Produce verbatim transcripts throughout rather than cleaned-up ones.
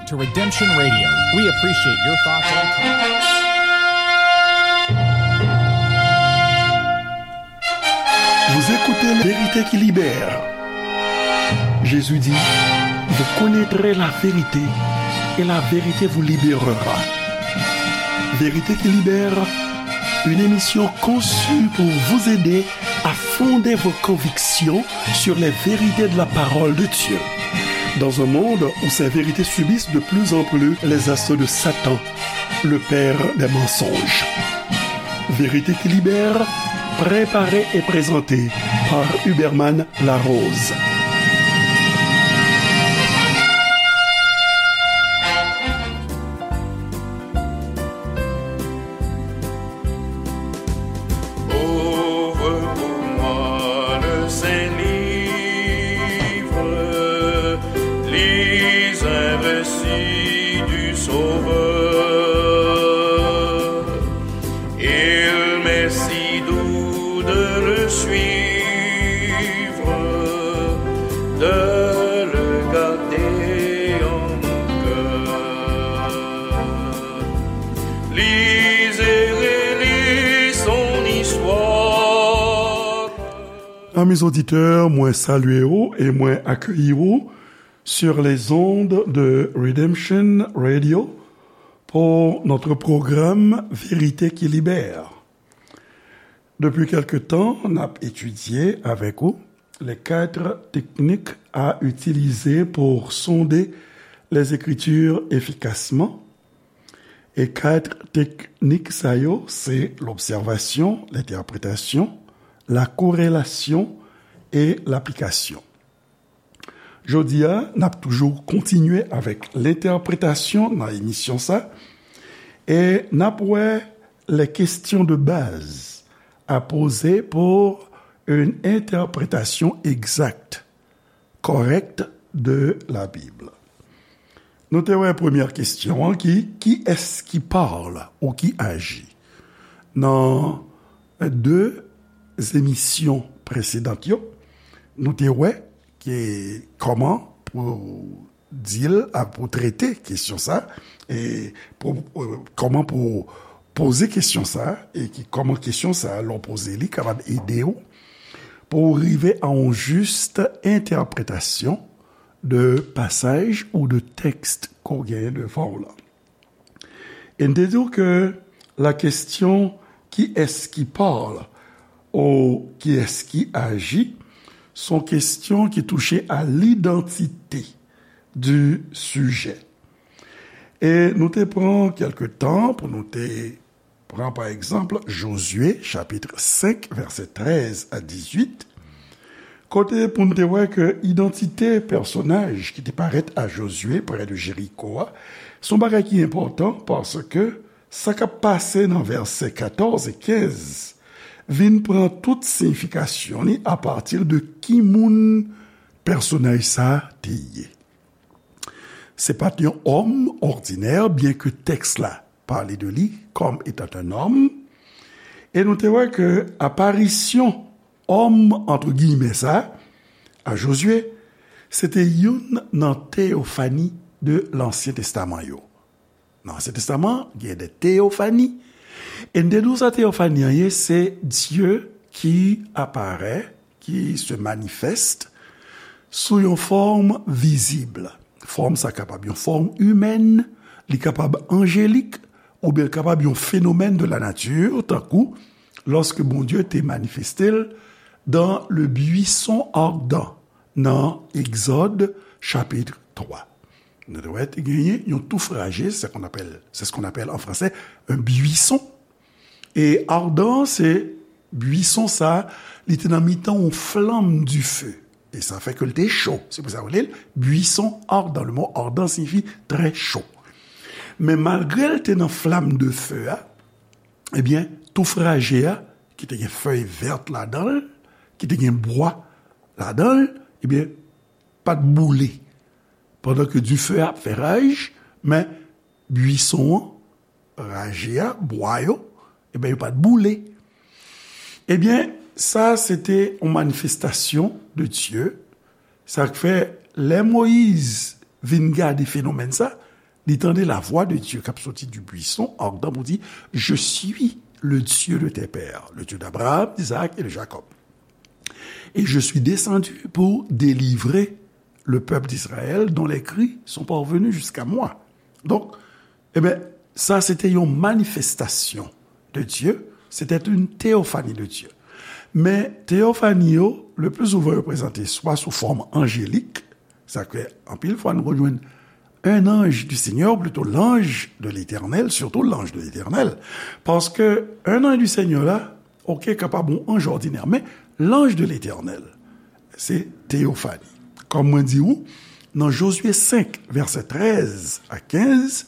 To Redemption Radio. We appreciate your thoughts and comments. Vous écoutez La vérité qui libère. Jésus dit, vous connaîtrez la vérité et la vérité vous libérera. Vérité qui libère, une émission conçue pour vous aider à fonder vos convictions sur les vérités de la parole de Dieu. Dans un monde où ces vérités subissent de plus en plus les assauts de Satan, le père des mensonges. Vérité qui libère, préparée et présentée par Huberman Larose. Ouvre pour moi le Saint Livre, lis un récit du Sauveur. Il m'est si doux de le suivre, de le garder en mon cœur. Lis et relis son histoire. Amis auditeurs, mwen salye w e mwen akeyi w sur les ondes de Redemption Radio pour notre programme Vérité qui libère. Depuis quelque temps, n ap étudier avec vous les quatre techniques à utiliser pour sonder les Écritures efficacement. E kat teknik sa yo, se lobsèvasyon, lentèpretasyon, la korelasyon e laplikasyon. Jodi a, n ap toujou kontinye avèk lentèpretasyon nan emisyon sa, e n ap wè les questions de base à poser pour une interprétation exacte, correcte de la Bible. Nou te wè premyè kesyon an ki, qui est-ce qui parle ou qui agit? Nan de emisyon presedan yo, nou te wè ki kòman pou di l, a, pou trete kesyon sa, e pou, e, kòman pou poze kesyon sa, e ki kòman kesyon sa, lè w poze li, kapab ede w pou w rive a yon jis entèpretasyon de pasaj ou de tèks ke w genyen devan w lan. E n te di w ke la question qui est-ce qui parle ou qui est-ce qui agit se yon kesyon ki touche a l'identité du sujet. E nou te pran kèlke tan pou nou te pran, pa egzanp, Jozye, chapit senk, vèsè trèz a dizuit, kote pou n te wè ke idantite pèsonaj ki te parèt a Jozye prè de Jeriko a, se yon bagay ki enpòtan, paske sa k ap pase nan vèsè katòz e kenz vin pran tout siyifikasyon li apati de ki moun pèsonaj sa a te ye. Se pa t yon òm òdinè, byenke tèks la pale de li comme étant un homme. E nou te wè ke aparisyon òm, entre guillemets, sa a Jozye, se te youn nan teyofani de Lansyen Testaman yo. Nan Ansyen Testaman, gen de teyofani. E n te di w sa teyofani an ye, se Dye ki aparèt, qui se manifeste sous yon fòm vizib. Fòm sa kapab yon fòm imèn, li kapab anjelik, oubyen l kapab yon fenomèn de la nature, tankou lòske Bondye te manifeste l dans le buisson ardent, nan Egzòd, chapit twa. Nou te wè te genyen yon touf raje, c'est qu'on appelle, c'est ce qu'on appelle en français un buisson. E ardent, se buisson sa, li te nan mitan yon flanm dife. E sa fè ke l te cho. Se pou sa yo rele l buisson ardent. Le mot ardent signifie très chaud. Men malgre l te nan flanm dife a, ebyen, touf raje a, ki te gen fèy vèt ladan l, ki te gen bwa ladan l, ebyen, pa t boule. Pandan ke dife a ap fè raj, men buisson an, raje a, bwa yo, ebyen, yo pa t boule. Ebyen, sa se te yon manifestasyon de Dye. Sa k fè, lè Moyiz vin gade fenomèn sa, Li tande la voix de Dieu k ap soti du buisson ardent pou di, Je suis le Dieu de tes pères, le Dieu d'Abraham, d'Isaac et de Jacob. Et je suis descendu pour délivrer le peuple d'Israël dont les cris sont parvenus jusqu'à moi. Donk, e ben, sa se te yon manifestasyon de Dieu, c'était une théophanie de Dieu. Men teyofani yo, le plus souvent, yo prezante swa sou fòm anjelik, sa ke anpil fwa nou jwenn un ange du Seigneur, plutôt l'ange de l'Éternel, surtout l'ange de l'Éternel, paske un ange du Seigneur la, ok, kapab yon anj òdinè, men l'ange de l'Éternel, se teyofani. Kòm mwen di ou, nan Jozye senk, vèsè trèz a kenz,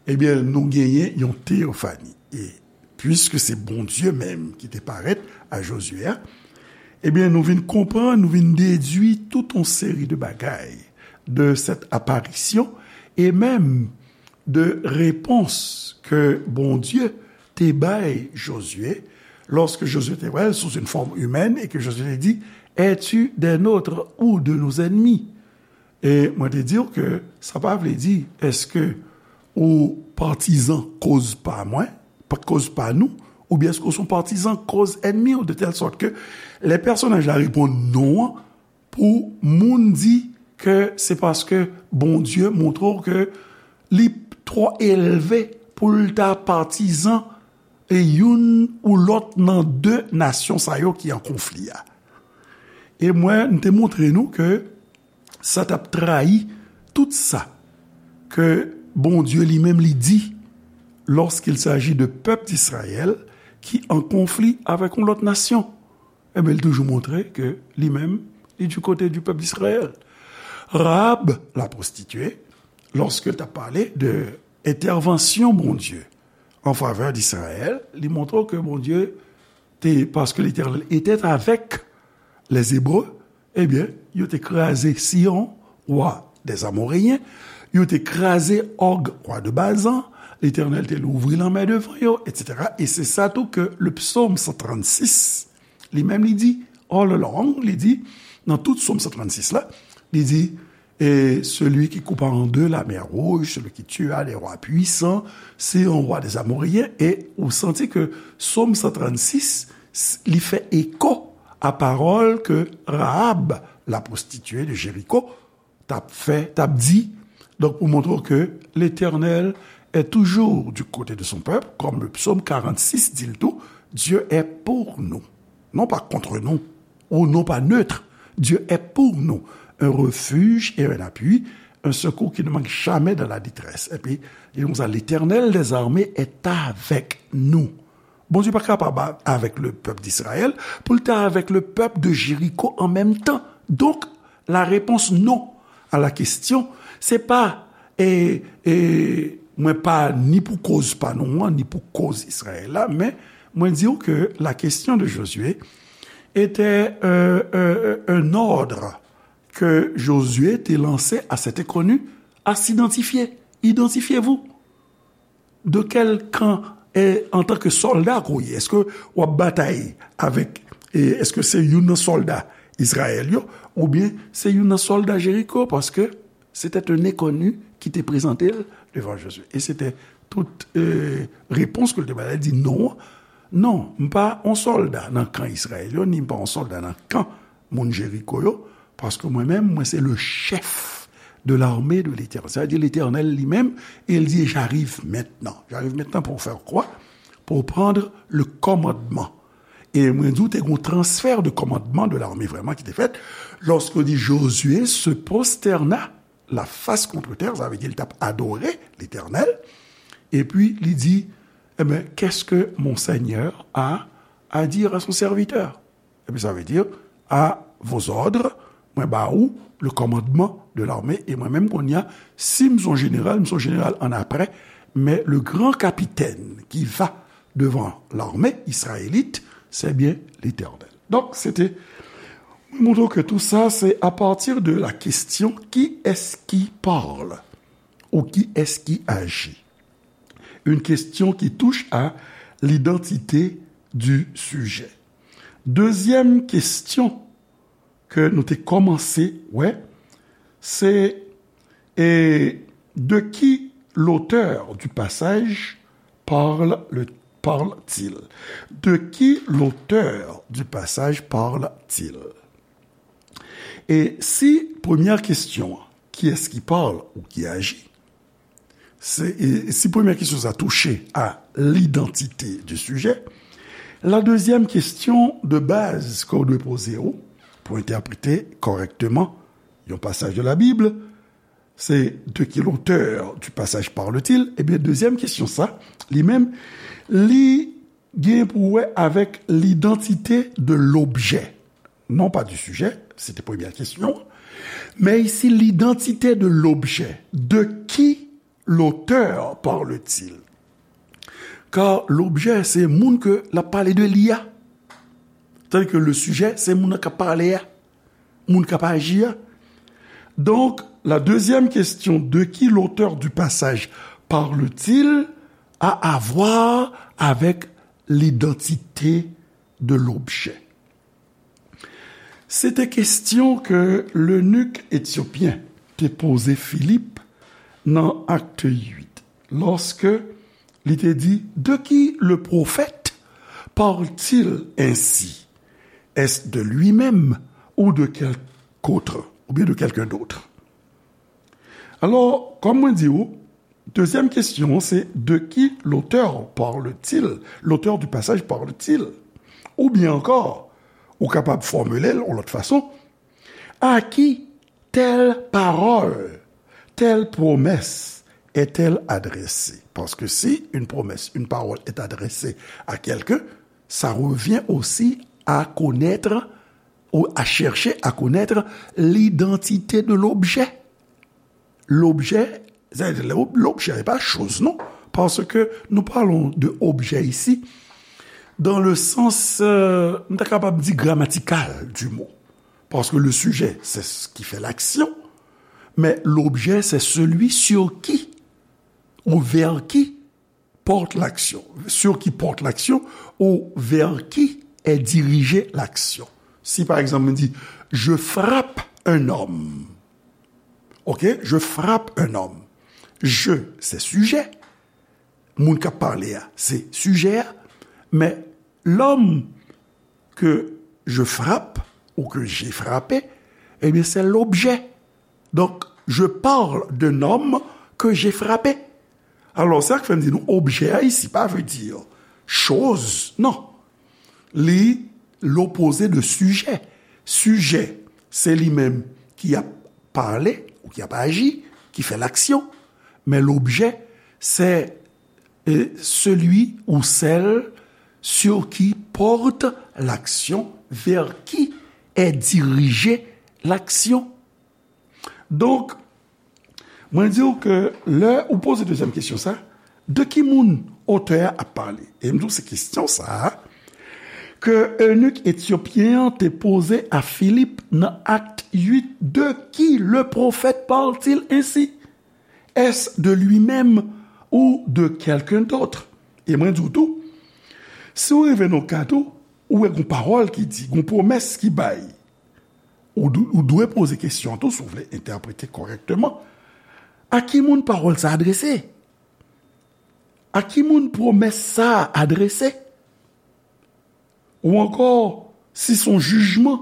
ebyen, nou genyen yon teyofani. E piske se Bondye menm ki te parèt a Jozye a, ebyen, nou vin konprann, nou vin dedui tout yon seri de bagay de cette apparition, e menm de repons ke Bondye te bay Jozye, lorsque Josué te wè l sous une forme humaine et que Josué te di, Es-tu des nôtres ou de nos ennemis? E mwen te di w ke sa pa vle di, èske ou patizan koz pa mwen, pa koz pa nou, oubyen èske ou se yon patizan koz ènmi w, de tèl sòt ke lè pèsonaj la reponn non an, pou moun di ke se paske Bondye montre w ke li twò elve pou l ta patizan e youn ou lòt nan de nasyon sa yo ki an konfli a. E mwen, m te montre nou ke sa t ap trayi tout sa ke Bondye li menm li di lorsqu'il s'agit de peuple d'Israël ki an konfli avèk yon lòt nasyon. Ebyen, li toujou montre ke li menm, li du côté du peuple d'Israël. Rahab, la prostituée, lorsque l t ap pale de entèvansyon Bondye an favè d'Israël, li montre ke Bondye te, parce que l'Éternel était avec les Hébreux, ebyen, yo te kraze Sihon, wa des Amoréens, yo te kraze Og, wa de Bazan, Letènèl te louvri lanmè devan yo, etsetera. E se sa tou ke le psaume cent trente-six, li menm li di, all along, li di, nan tout psaume cent trente-six la, li di, et celui qui coupa en deux la mer Rouge, celui qui tua les rois puissants, c'est un roi des Amoréens. E ou santi ke psaume cent trente-six, s- li fè eko a pawòl ke Rahab, la prostituée de Jéricho, t ap fè, t ap di. Donk, pou montre w ke l'Éternel est toujours du côté de son peuple, comme le psaume quarante-six dit le tout, Dieu est pour nous, non pas contre nous, ou non pas neutre. Dieu est pour nous, un refuge et un appui, un secours qui ne manque jamais dans la détresse. Epi, li di konsa, L'Éternel des armées est avec nous. Bondye pa kapab avèk le peuple d'Israël, pou l te avèk le peuple de Jéricho an menm tan. Donk, la réponse non à la question, se pa, e, e, mwen pa ni pou koz pa nou an, ni pou koz Izrayèl la, men mwen di w ke la question de Josué était, euh, euh, un ordre que Josué te lancé à cet inconnu à s'identifier. Identifiez-vous. De kèl kan, e, antanke sòlda ke w ye? Èske w ap batay avèk, e, èske se youn nan sòlda Izrayèl yo, oubyen se youn nan sòlda Jeriko? Paske se te yon enkoni ki te prezante l devan Jozye. E se te tout, e, repons ke l te bay la, li di non. Non, m pa yon sòlda nan kan Izrayèl yo, ni m pa yon sòlda nan kan moun Jeriko yo, paske mwen menm, mwen se le chèf de l'armée de l'Éternel. Sa vle di Letènèl li menm, e l di, j'arrive maintenant. J'arrive maintenant pour faire quoi? Pour prendre le commandement. E mwen di w, te gen yon transfè de kòmandman de l'armée vrèman ki te fèt, lòske di Josué se prosterna la face contre terre, sa vle di l t ap adore Letènèl, epi li di, eh ben, qu'est-ce que mon Seigneur a à dire à son serviteur? Epi sa vle di, à vos ordres, mwen ba ou le commandement de l'armée, e mwen menm kounye a, si m se yon jeneral, m se yon jeneral an apre, men le grand capitaine qui va devant l'armée israélite, c'est bien l'Éternel. Donk, se te, mwen montre w ke tou sa, se à partir de la question, qui est-ce qui parle? Ou qui est-ce qui agit? Une question qui touche à l'identité du sujet. Dezyèm kesyon ke nou te kòmanse wè, se, e, de qui l'auteur du passage parle, le, parle-t-il? De qui l'auteur du passage parle-t-il? E si premyè kesyon an, kiyès ki pale ou ki aji? Se, e si premyè kesyon sa touche a lidantite di sijè, la dezyèm kesyon de baz ke w dwe poze w pou entèprete kòrèkteman yon pasaj de la Bib, se de qui l'auteur du passage parle-t-il? Ebyen, dezyèm kesyon sa, li menm, li gen pou wè avèk l'identité de l'objet. Non pas du sujet, se te premyè kesyon, men isi, l'identité de l'objet. De qui l'auteur parle-t-il? Kar l'objet, se moun ke l ap pale de li a. Tandis que le sujet, se moun nan k ap pale a, moun k ap aji a. Donc, la deuxième question, de qui l'auteur du passage parle-t-il, a à voir avec l'identité de l'objet. Se te kesyon ke lenik etyopyen te poze Filip nan Acte huit, lòske li te di, de qui le prophète parle-t-il ainsi? Est-ce de lui-même ou de quelque autre, ou bien de quelqu'un d'autre? Alò, kòm mwen di w, dezyèm kesyon an, se de qui l'auteur parle-t-il? L'auteur du passage parle-t-il? Oubyen ankò, ou kapab fòmile l yon lòt fason, à qui telle parole, telle promesse est-elle adressée? Parce que si une promesse, une parole est adressée à quelqu'un, ça revient aussi à connaître ou à chercher à connaître l'identité de l'objet. L'objet, l'objet n'est pas chose, non. Parce que nous parlons de objet ici, dans le sens, euh, nou ta kapab di gramatikal du mot. Parce que le sujet, c'est ce qui fait l'action, mais l'objet, c'est celui sur qui ou vers qui porte l'action, sur qui porte l'action ou vers qui est dirigée l'action. Si, par exemple, je dis, je frappe un homme. Ok, je frappe un homme. Je, c'est sujet. Moun k ap pale a, se sijè a. Mais l'homme que je frappe ou que j'ai frappé, eh bien, c'est l'objet. Donc, je parle d'un homme que j'ai frappé. Alò, sa k fè m di nou, objè a isi pa vle di choz, non. Li lopoze de sijè. Sijè, se li menm ki ap pale ou ki ap aji, ki fè laksyon. Men l'objet, c'est, euh, celui ou celle sur qui porte l'action, vers qui est dirigée l'action. Donk, mwen di w ke lè ou poze dezyèm kesyon sa, de ki moun otè a ap pale? E m di w se kesyon sa a ke enik etyopyen an te poze a Filip nan Acte huit, de qui le prophète parle-t-il ainsi? Est-ce de lui-même ou de quelqu'un d'autre? E mwen di w tou, si w rive nan ka tou, ou wè gon pawòl ki di, gon pwomès ki bay, ou, dw- ou dwe poze kesyon tou si w vle entèprete kòrèkteman. A ki moun pawòl sa adrese? A ki moun pwomès sa adrese? Ou ankò, si se yon jijman,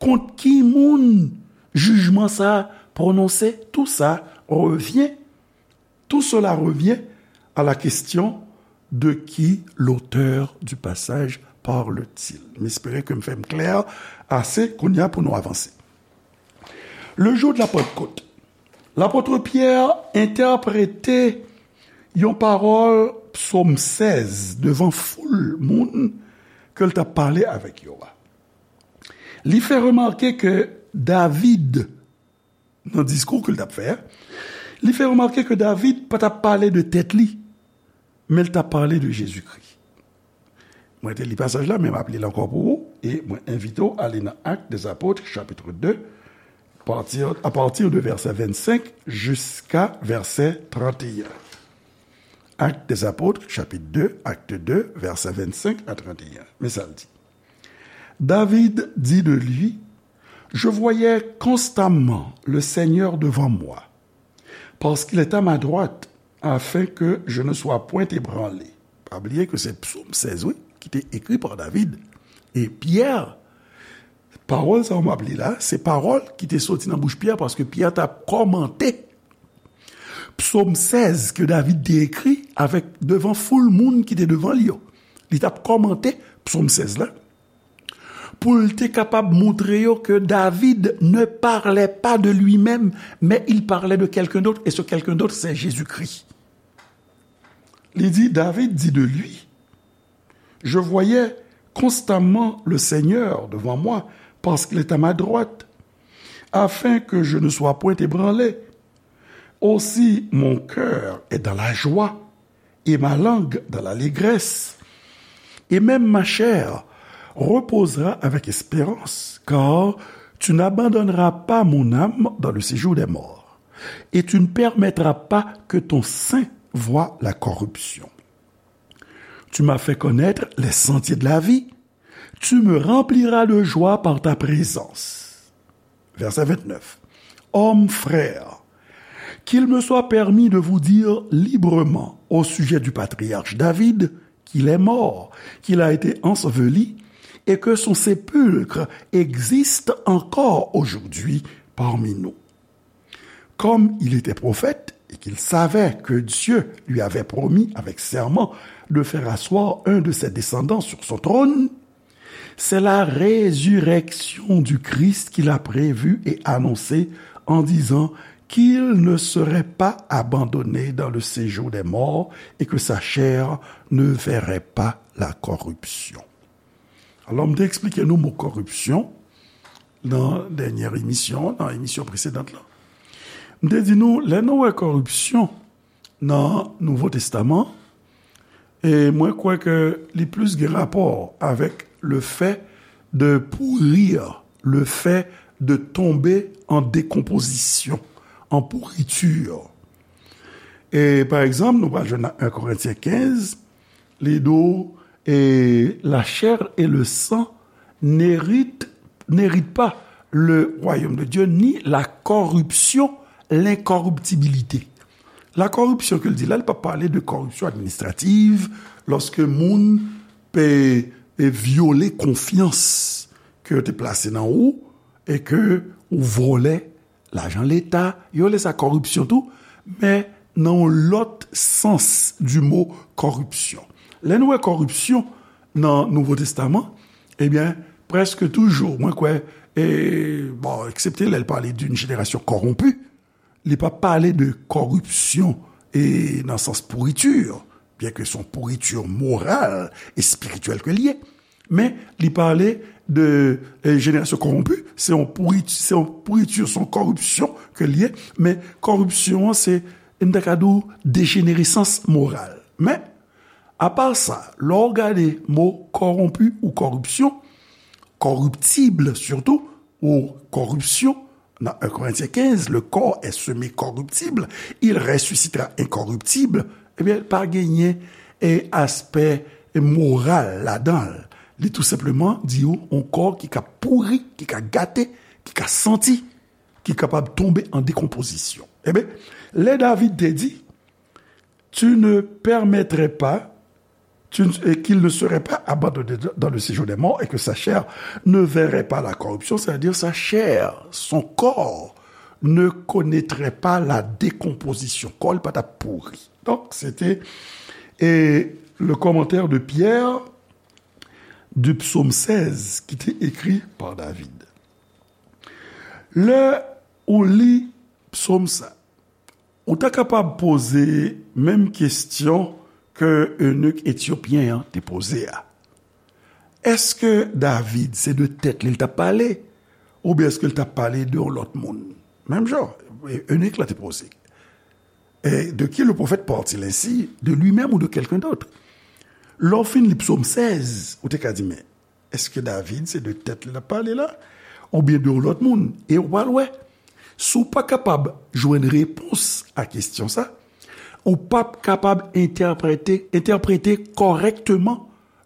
kont ki moun jijman sa pwononse? Tout ça revient, tout cela revient à la question de qui l'auteur du passage parle-t-il. M espere ke m fè m klè ase kounye a pou nou avanse. Le jour de la Pentecôte, lapot Pyè entèprete yon pawòl, Psaume seize, devan foul moun ke l t ap pale avèk yo a. Li fè remake ke David, nan diskou ke l t ap fè a, li fè remake ke David pa t ap pale de tèt li, men l t ap pale de Jezikri. Mwen te li pasaj la, men m ap li l ankò pou ou, e mwen envite w ale nan Actes des Apôtres, chapitre deux, partir, à partir de verset vingt-cinq jusqu'à verset trente et un. Actes des Apôtres, chapitre deux, Acte deux, verset vingt-cinq à trente et un. Men sa l di. David dit de lui, je voyais constamment le Seigneur devant moi, parce qu'il est à ma droite, afin que je ne sois point ébranlé. Pa bliye ke se Psaume seize, wi, ki te ekri pa David. E Pyè, pawòl sa m ap li la, se pawòl ki te soti nan bouch Pyè, paske Pyè t ap kòmante Psaume seize ke David te ekri avèk, devan foul moun ki te devan li yo. Li t ap kòmante Psaume seize la, pou l te kapab montre yo ke David ne parlait pas de lui-même, mais il parlait de quelqu'un d'autre, et ce quelqu'un d'autre, c'est Jésus-Christ. Li di, David dit de lui, je voyais constamment le Seigneur devant moi, parce qu'il est à ma droite, afin que je ne sois point ébranlé. Aussi mon cœur est dans la joie, et ma langue dans l'allégresse. Et même ma chair reposera avec espérance, car tu n'abandonneras pas mon âme dans le séjour des morts, et tu ne permettras pas que ton saint voie la corruption. Tu m'as fait connaître les sentiers de la vie, tu me rempliras de joie par ta présence. Verset vingt-neuf. Hommes, frères, qu'il me soit permis de vous dire librement au sujet du patriarche David, qu'il est mort, qu'il a été enseveli, et que son sépulcre existe encore aujourd'hui parmi nous. Comme il était prophète et qu'il savait que Dieu lui avait promis avec serment de faire asseoir un de ses descendants sur son trône, c'est la résurrection du Christ qu'il a prévue et annoncée en disant qu'il ne serait pas abandonné dans le séjour des morts et que sa chair ne verrait pas la corruption. Alò, m te eksplike nou mo kòripsyon nan dènyè emisyon, nan emisyon presedan la. M te di nou, lè nou wè kòripsyon nan Nouvo Testaman, e mwen kwè ke li plis gen rapò avèk le fait de pourrir, le fait de tomber en décomposition, en pourriture. E pa egzanp, nou pral jwenn nan un Corinthiens quinze, li di w, et la chair et le sang n'héritent, n'héritent pas le royaume de Dieu, ni la corruption, l'incorruptibilité. La corruption ke l di la, li pa pale de corruption administrative, lòske moun pe, e vyole konfyans ke yo te plase nan ou, e ke ou vòlè lajan leta, yo rele sa kòripsyon tou, men nan yon lòt sans du mot corruption. Lè nou wè kòripsyon nan Nouvo Testaman, ebyen, prèske toujou, mwen kwè, e, bon, eksepte lè l pale d'une génération corrompue, li pa pale de kòripsyon e nan sans pourriture, byen ke se yon pourriture moral e espirityèl ke l ye, men li pale de, e, génération corrompue, se yon pourri-, se yon pourriture, se yon kòripsyon ke l ye, men kòripsyon an se, m ta ka di w, dejeneresans moral. Men, apa sa, lè w gade mo corrompu ou corruption, corruptible surtout, ou corruption, nan un Corinthiens quinze, le corps est semé corruptible, il ressuscitera incorruptible, ebyen, pa genyen, e, aspè moral ladan l. Li tou senpleman di w yon kò ki ka pouri, ki ka gate, ki ka santi, ki kapab tonbe an dekonpozisyon. Ebyen, lè David te di, tu ne permettrais pas, tu ne- et qu'il ne serait pas abandonné dans le séjour des morts et que sa chair ne verrait pas la corruption, c'est-à-dire sa chair, son corps, ne connaîtrait pas la décomposition. Kò l pa t ap pouri. Donk, se te, e, le commentaire de Pierre du psaume seize ki te ekri pa David. Lè ou li psaume sa, ou ta kapab poze menm kesyon ke enik etyopyen an te poze a. Èske David se de tèt li l t ap pale, oubyen èske l t ap pale de yon lòt moun? Menm jan, enik la te poze. Et de qui le prophète parle-t-il ainsi, de lui-même ou de quelqu'un d'autre? Lè w fin li psaume seize, ou te ka di, men, èske David se de tèt li l ap pale la, oubyen de yon lòt moun? E w pral wè, si w pa kapab jwenn repons a kesyon sa, ou p ap kapab entèprete, entèprete kòrèkteman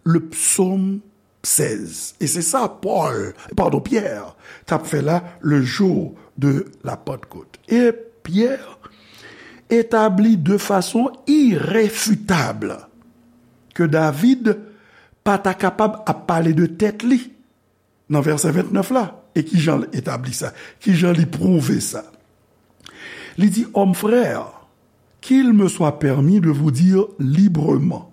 le psaume seize. E se sa Pòl, padon, Pyè, t ap fè la le jour de la Pentecôte. E Pyè, établi de façon irréfutable ke David pa ta kapab ap pale de tèt li nan vèsè vennèf la. E ki jan l etabli sa? Ki jan li pwouve sa? Li di, Hommes frères, qu'il me soit permis de vous dire librement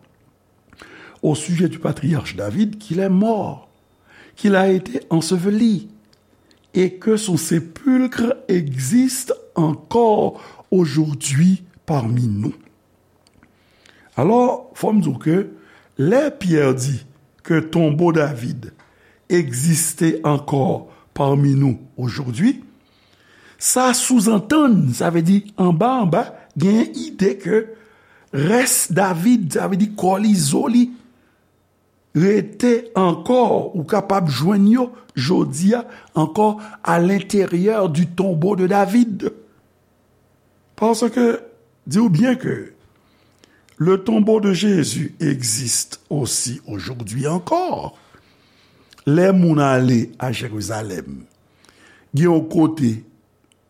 au sujet du patriarche David qu'il est mort, qu'il a été enseveli et que son sépulcre existe encore aujourd'hui parmi nous. Alò, fò m di w ke lè Pyè di ke tonbo David egziste ankò parmi nous aujourd'hui, sa souzantann, sa vle di anba anba, gen ide ke rès David, sa vle di kò li, zo li, rete ankò, ou kapab jwenn yo jodi a ankò à l'intérieur du tombeau de David. Paske, di w byen ke le tombeau de Jésus existe aussi aujourd'hui encore. Lè moun ale a Jerizalèm, gen yon kote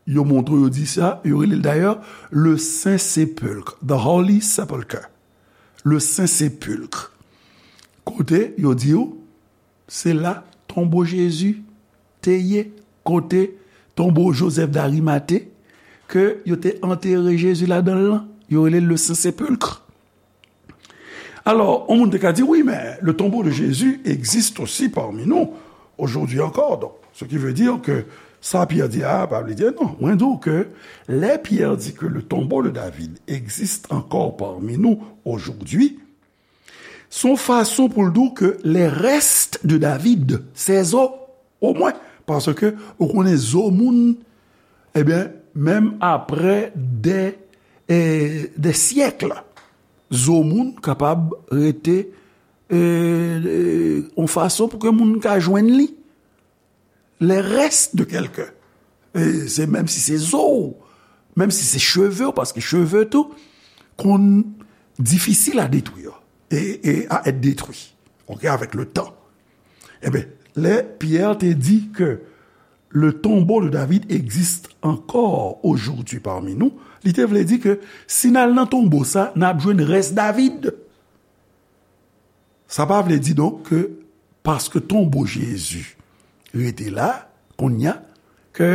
yo montre w, yo di sa, yo rele l dayè le Saint Sépulcre, the Holy Sepulchre, le Saint Sépulcre. Kote yo di w se la tonbo Jezi te ye, kote tonbo Joseph d'Arimathée, ke yo te antere Jezi ladan l lan, yo rele l le Saint Sépulcre. Alò, yon moun te ka di, wi, men le tombeau de Jésus existe aussi parmi nous aujourd'hui encore. Donc, ce qui veut dire que sa Pyè di a, pa vle di non. Mwen di w ke lè Pyè di ke le tombeau de David existe encore parmi nous aujourd'hui, se yon fason pou l di w ke les restes de David, ses os, omwen, paske ou konnen zo moun, ebyen, menm apre de, eh, de syèk, zo moun kapab rete, eh, eh, yon fason pou ke moun ka jwenn li. Les restes de quelqu'un. E se menm si se zo w, menm si se cheve w, paske cheve tou konn difisil à détruire et, et à être détruit, ok, avec le temps. Ebyen, lè Pyè te di ke le tombeau de David existe encore aujourd'hui parmi nous, li te vle di ke si n al nan tonbo sa, n ap jwenn rès David. Sa pa vle di donk ke paske tonbo Jezi rete la, kounye a, ke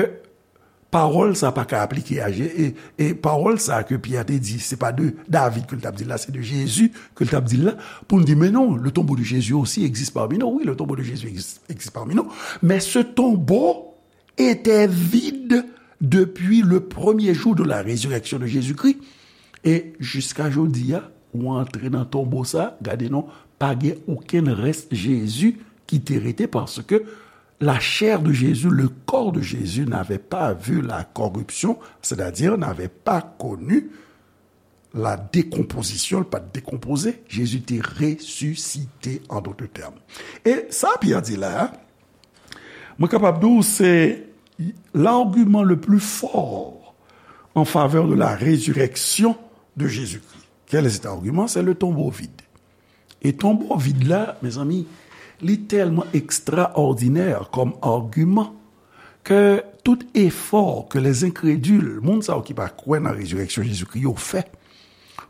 pawòl sa pa ka aplike a Je-, e, e pawòl sa ke Pyè te di, se pa de David ke l t ap di l la, se de Jezi ke l t ap di l la, pou n di, men non, le tombeau de Jésus aussi existe parmi nous. Oui, le tombeau de Jésus existe, existe parmi nous. Mais ce tombeau était vide depuis le premier jour de la résurrection de Jésus-Christ. E jiska jodi a, ou antre nan tonbo sa, gade non, pa gen okenn rès Jezi ki te rete, paske la chair de Jésus, le corps de Jésus n'avait pas vu la corruption, c'est-à-dire n'avait pas connu la décomposition, li pa t dekonpoze. Jezi te resisite, en d'autres termes. E sa Pyè di la a, mwen kapab di w se l'argument le plus fort en faveur de la résurrection de Jésus-Christ. Quel est cet argument? C'est le tombeau vide. E tonbo vid la, mezanmi, li tèlman ekstraòdinè kòm agiman ke tout efò ke les incrédules, moun sa yo ki pa kwè nan rezirèksyon Jezikri yo fè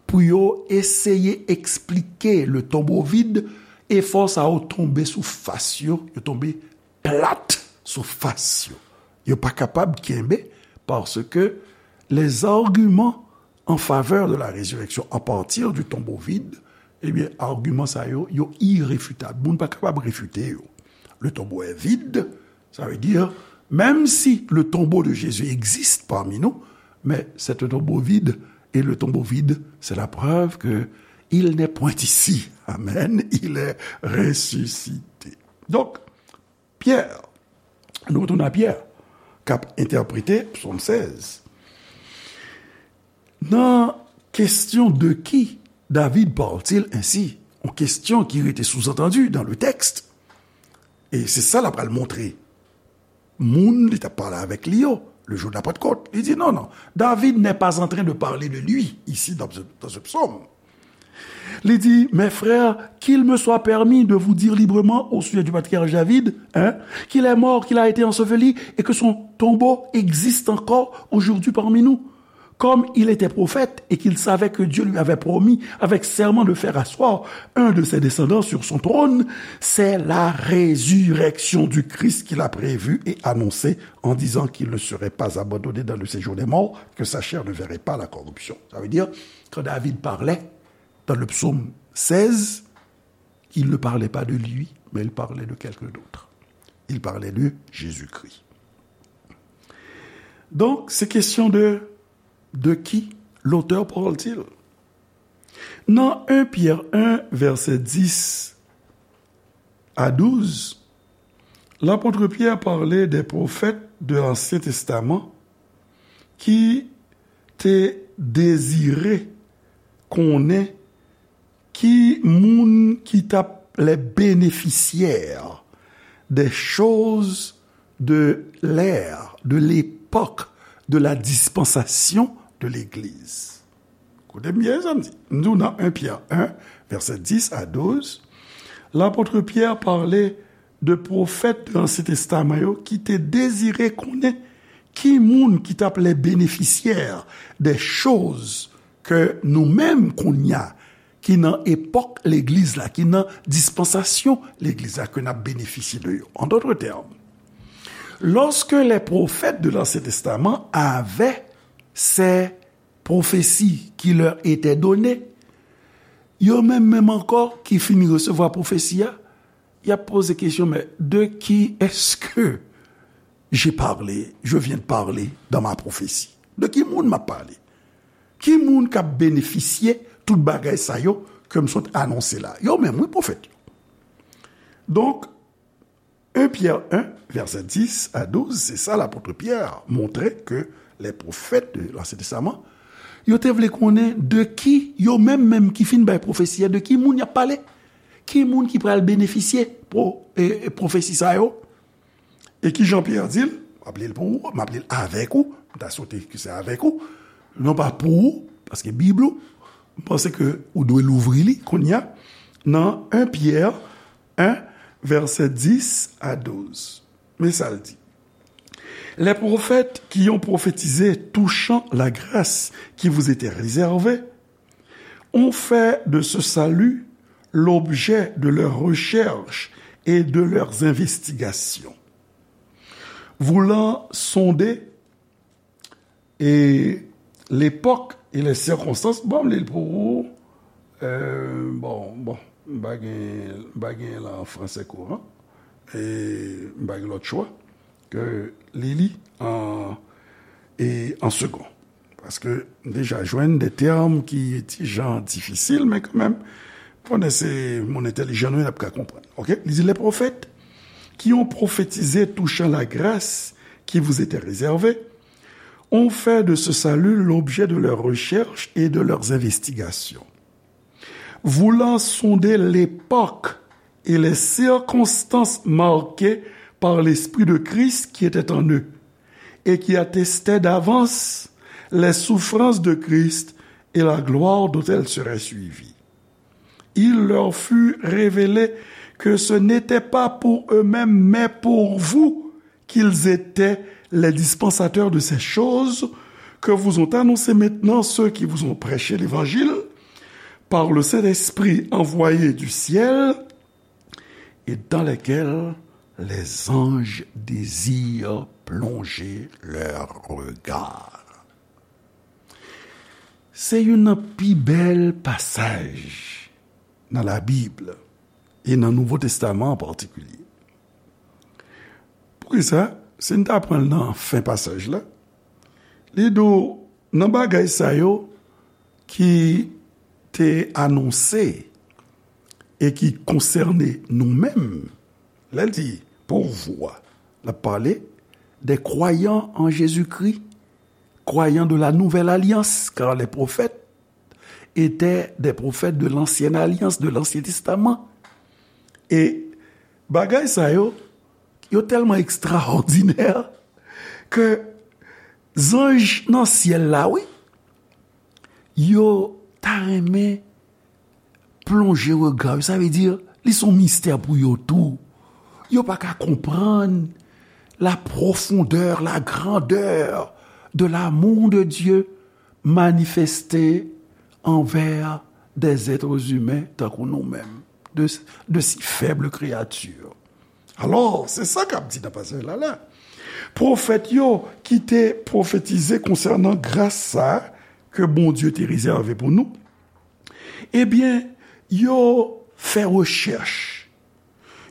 pou yo eseye eksplike le tombeau vide, efò sa yo tonbe sou fas yo, yo tonbe plat sou fas yo. Yo pa kapab kenbe, paske les arguments en faveur de la résurrection à partir du tombeau vide, ebyen, agiman sa yo, yo irefitab. Moun pa kapab refite yo. Le tombeau est vide, ça veut dire, même si le tombeau de Jésus existe parmi nous, mais c'est un tombeau vide, et le tombeau vide, c'est la preuve que il n'est point ici. Amen. Il est ressuscité. Donc, Pyè, nou retounen a Pyè, k ap entèprete Psaume seize. Nan question de qui David parle-t-il ainsi? Yon kestyon ki rete sous-entendu dans le texte. E se sa l ap pral montre moun li t ap pale avèk li yo, le jour de la Pentecôte. Li di, non, non, David n'est pas en train de parler de lui ici dans ce, dans ce psaume. Li di, mes frères, qu'il me soit permis de vous dire librement au sujet du patriarche David, hein, qu'il est mort, qu'il a été enseveli et que son tombeau existe encore aujourd'hui parmi nous. Comme il était prophète et qu'il savait que Dieu lui avait promis avec serment de faire asseoir un de ses descendants sur son trône, c'est la résurrection du Christ qu'il a prévue et annoncée en disant qu'il ne serait pas abandonné dans le séjour des morts, que sa chair ne verrait pas la corruption. Ça veut dire, quand David parlait dans le psaume seize, il ne parlait pas de lui, mais il parlait de quelqu'un d'autre. Il parlait de Jésus-Christ. Donc, c'est question de, de qui l'auteur parle-t-il? Nan un Pierre un, verset dix à douze, l'apôtre Pierre parlait des prophètes de l'Ancien Testament ki te dezire konnen ki moun ki t ap les bénéficiaires des choses de l'ère, de l'époque, de la dispensation de l'Église. Koute byen sa m di. M di w nan un Pierre un, verset dix à douze, l'apôtre Pierre parlait de pwofèt de l'Ancien Testament yo ki te dezire konnen ki moun ki t ap les bénéficiaires des choses ke nou menm kounye a, ki nan epòk legliz la, ki nan dispansasyon legliz la, ke n ap benefisye de yo. En d'autres termes, lorsque les prophètes de l'Ancien Testament avaient ces prophéties qui leur étaient données, yo menm menm ankò ki fin resevwa pwofesi a, y ap poze kesyon, mais de qui est-ce que j'ai parlé, je viens de parler dans ma prophétie? De ki moun m ap pale? Ki moun k ap benefisye tout bagay sa yo ke m sot anonse la? Yo menm, wi, pwofèt yo. Donk, un Pierre un, verset dix à douze, se sa lapot Pyè montre ke les prophètes de l'Ancien Testament, yo te vle konnen de ki, yo menm menm ki fin bay pwofesi a, de ki moun y ap pale? Ki moun ki pral benefisye pwo-, e, e, pwofesi sa yo? E ki jan Pyè di l? M ap li l pou ou, m ap li l avèk ou, m ta swete ke se avèk ou, non pa pou ou, paske Bib ou, m panse ke ou dwe louvri li kounye a, nan un Pyè un, verset dix à douze. Men sa l di. Les prophètes qui ont prophétisé touchant la grâce qui vous était réservée ont fait de ce salut l'objet de leurs recherches et de leurs investigations, voulant sonder e l'époque et les circonstances. Bon, m li l pou ou. Euh, bon, bon, m pa gen, m pa gen l an fransè kouran. E m pa gen lòt chwa ke li li an, e an segon. Paske m deja jwenn de tèm ki ti jan difisil, men kanmenm, konnen se moun entèlijan nou ye, n ap ka konprann. Oke? Li di, les prophètes qui ont prophétisé touchant la grâce qui vous était réservée ont fait de ce salut l'objet de leurs recherches et de leurs investigations, voulant sonder l'époque et les circonstances marquées par l'Esprit de Christ qui était en eux, et qui attestaient d'avance les souffrances de Christ et la gloire dont elles seraient suivies. Il leur fut révélé que ce n'était pas pour eux-mêmes, mais pour vous, qu'ils étaient les dispensateurs de ces choses que vous ont annoncées maintenant ceux qui vous ont prêché l'évangile par le Saint-Esprit envoyé du ciel, et dans lesquels les anges désirent plonger leurs regards. Se youn nan pi bèl pasaj nan Labib e nan Nouvo Testaman an patikilye. Poukisa? Si n ta pran l nan fen pasaj la, li di w, nan bagay sa yo ki te anonse e ki konsène nou menm, lè l di pour vous, l ap pale des croyants en Jésus-Christ, croyants de la nouvelle alliance, car les prophètes étaient des prophètes de l'ancienne alliance, de l'Ancien Testament. E bagay sa yo, yo tèlman ekstraòdinè ke zanj nan syèl la, wi, yo ta renmen plonje rega yo. Sa vle di, li se yon mistè pou yo tou. Yo pa ka konprann la profondeur, la grandeur de l'amour de Dieu manifeste anvè des êtres humains tankou nou menm, de, de si faibles créatures. Alò, se sa k ap di nan pasaj la la. Pwofèt yo ki te pwofetize konsènan gras sa a ke Bondye te rezève pou nou, ebyen, yo fè rechèch,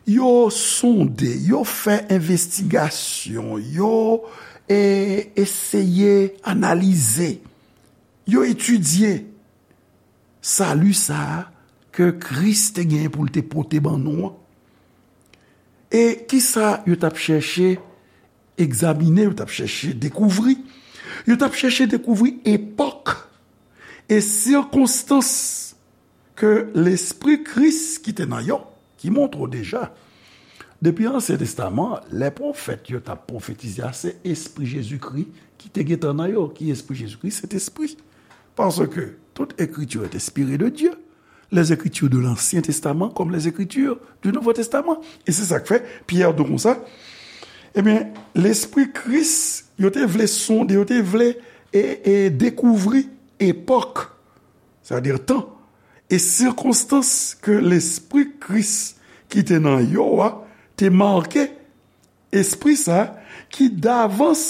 yo sonde, yo fè envestigasyon, yo, e, eseye analize, yo etidye sali sa a ke Kris te genyen pou l te pote ban nou an. E kisa yo t ap chèche egzamine, yo t ap chèche dekouvri? Yo t ap chèche dekouvri epòk e sikonstans ke Lespri Kris ki te nan yo, ki montre w deja, depi Ansyen Testaman, lè pwofèt yo t ap pwofetize a, se Espri Jezikri ki te gentan nan yo. Ki Espri Jezikri? Sentespri. Paske tout ekriti est inspirée de Dieu, les Écritures de l'Ancien Testament comme les Écritures du Nouveau Testament. E se sa k fè Pyè di konsa, ebyen, Lespri Kris, yo te vle sonde, yo te vle e, e dekouvri epòk, sètadi tan, e sikonstans ke Lespri Kris ki te nan yo a te make, Espri sa a ki davans